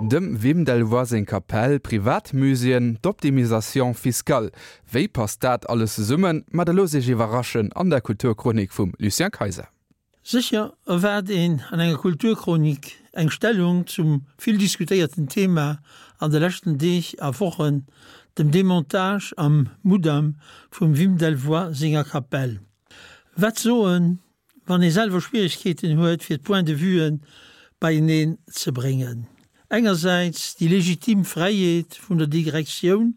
Dem Wim Delvoye seng Kapell, Privatmuséeën, d'Optimisation fiscale. Wéi passt dat alles zesummen? Ma da loosst Iech iwwerraschen an der Kulturchronik vum Lucien Kayser. Sécher erwaart een an enger Kulturchronik eng Stellung zum vill diskutéierten Thema an de leschten Deeg a Wochen, dem Demontage am Mudam vum Wim Delvoye senger Kapell. Wat soen, wann ee selwer Schwieregkeeten huet fir d'Points de vuen beieneen ze bréngen? Engersäits déi legitim Fräiheet vun der Digrektioun,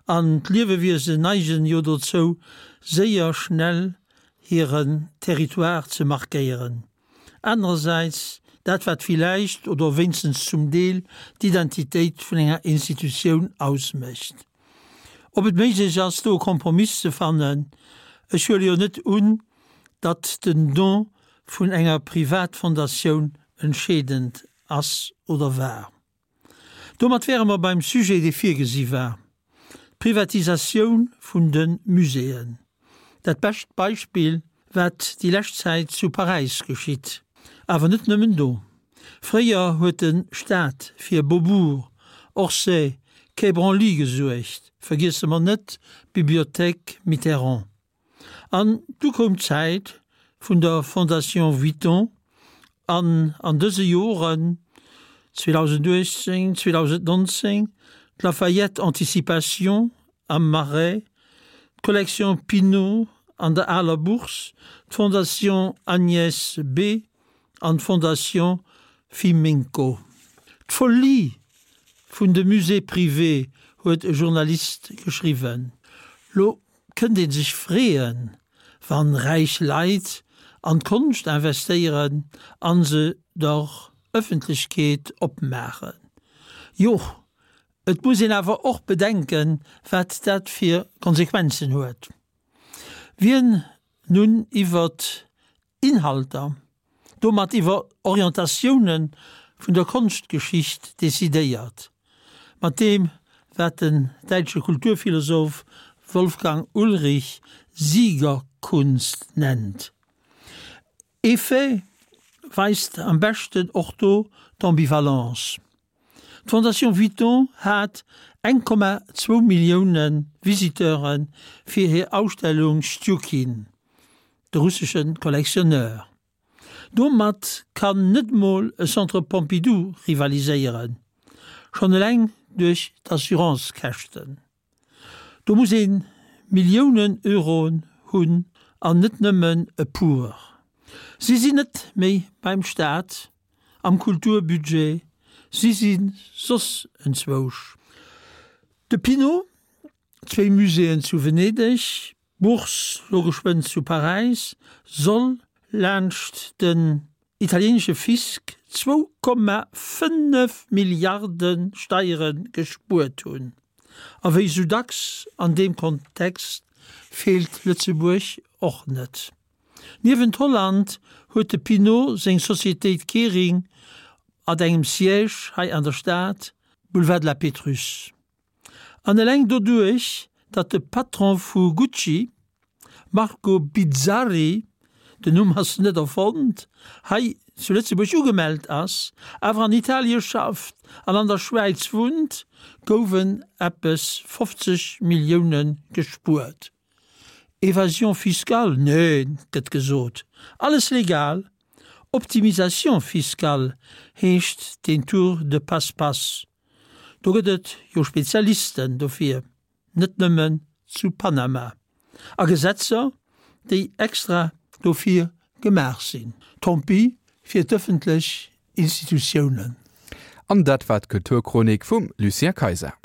an d'Liewewiesen neigen jo dozou séier schnell hiren Territoire ze markéieren, anerersäits dat wat villäicht oder wéinstens zum Deel d'Identitéit vun enger Institutioun ausmécht. Ob et méiglech ass do e Kompromiss ze fannen, ech huele jo net un, datt den Don vun enger Privatfondatioun entscheedend ass oder war. Domat wäre mer beim Sujet, dee virgesi war, d'Privatisatioun vun de Muséeën. Dat bescht Beispill, wat déi lescht Zäit zu Paräis geschitt. Awer net nëmmen do. Fréier huet de Staat fir Beaubourg, Orsay, Quai Branly gesuergt, vergiesse mer net d'Bibliothèque Mitterrand. An du koum d'Zäit vun der Fondation Vuitton an an dëse Joren, 2018, 2019, d'Lafayette Anticipation am Marais, d'Collection Pinault an der aler Bourse, d'Fondation Agnès B. an d'Fondation Fiminco. D'Folie vun de Musées privés huet e Journalist geschriwwen. Lo Kënnt een sech freeën, wann räich Leit an d'Konscht investéieren an se der Ëffentlechkeet opmaachen? Jo, et muss een awer och bedenken, wat dat fir Konsequenzen huet. Wien nun iwwert Inhalter, domat iwwer Orientatioune vun der Konschtgeschicht decidéiert, mat deem wat den däitsche Kulturphilosoph Wolfgang Ulrich Siegerkunst nennt. Ee Fait weist am beschten och do d'Ambivalence. D'Fondation Vuitton hat 1,2 Millioune Visiteure fir hir Ausstellung Stjukin, de russesche Collectionneur. Domat kann net mol e Centre Pompidou rivaliséieren, schonn eleng duerch d'Assurancekäschten. Do muss ee Milliounen Euroen hunn an net nëmmen e puer. Si sinn net méi beim Staat, am Kulturbudget, si si soss enzwousch. De Pinault, zwéi Muséeën zu Venedeg, D'Bourse, lo geschwënn zu Paräis, soll laanscht den italieenesche Fisc 2,5 Milliarde Steiere gespuert hunn. A wéi sou dacks an deem Kontext feelt Lëtzebuerg och net. Niewent Holland huet de Pinault seng Societéit Kering at engem Siège hei an der Stad, Boulevard de la Pétrusse. An eleng doduerch, datt de Patron vu Gucci, Marco Bizzarri, den Numm ass net erfonnt, hei zu Lëtzebuerg ugemellt ass, awer an Italie schafft an an der Schwäiz wunnt, gouwen eppes 50 Millioune gespuert. Evasion fiscale? Neen, gëtt gesot, alles legal. Optimisation fiscale heescht deen Tour de passe-passe. Do gëtt et jo Spezialisten dofir, net nëmmen zu Panama, a Gesetzer, déi extra dofir gemaach sinn. Tant pis fir d'ëffentlech Institutiounen. An dat war d'Kulturchronik vum Lucien Kayser.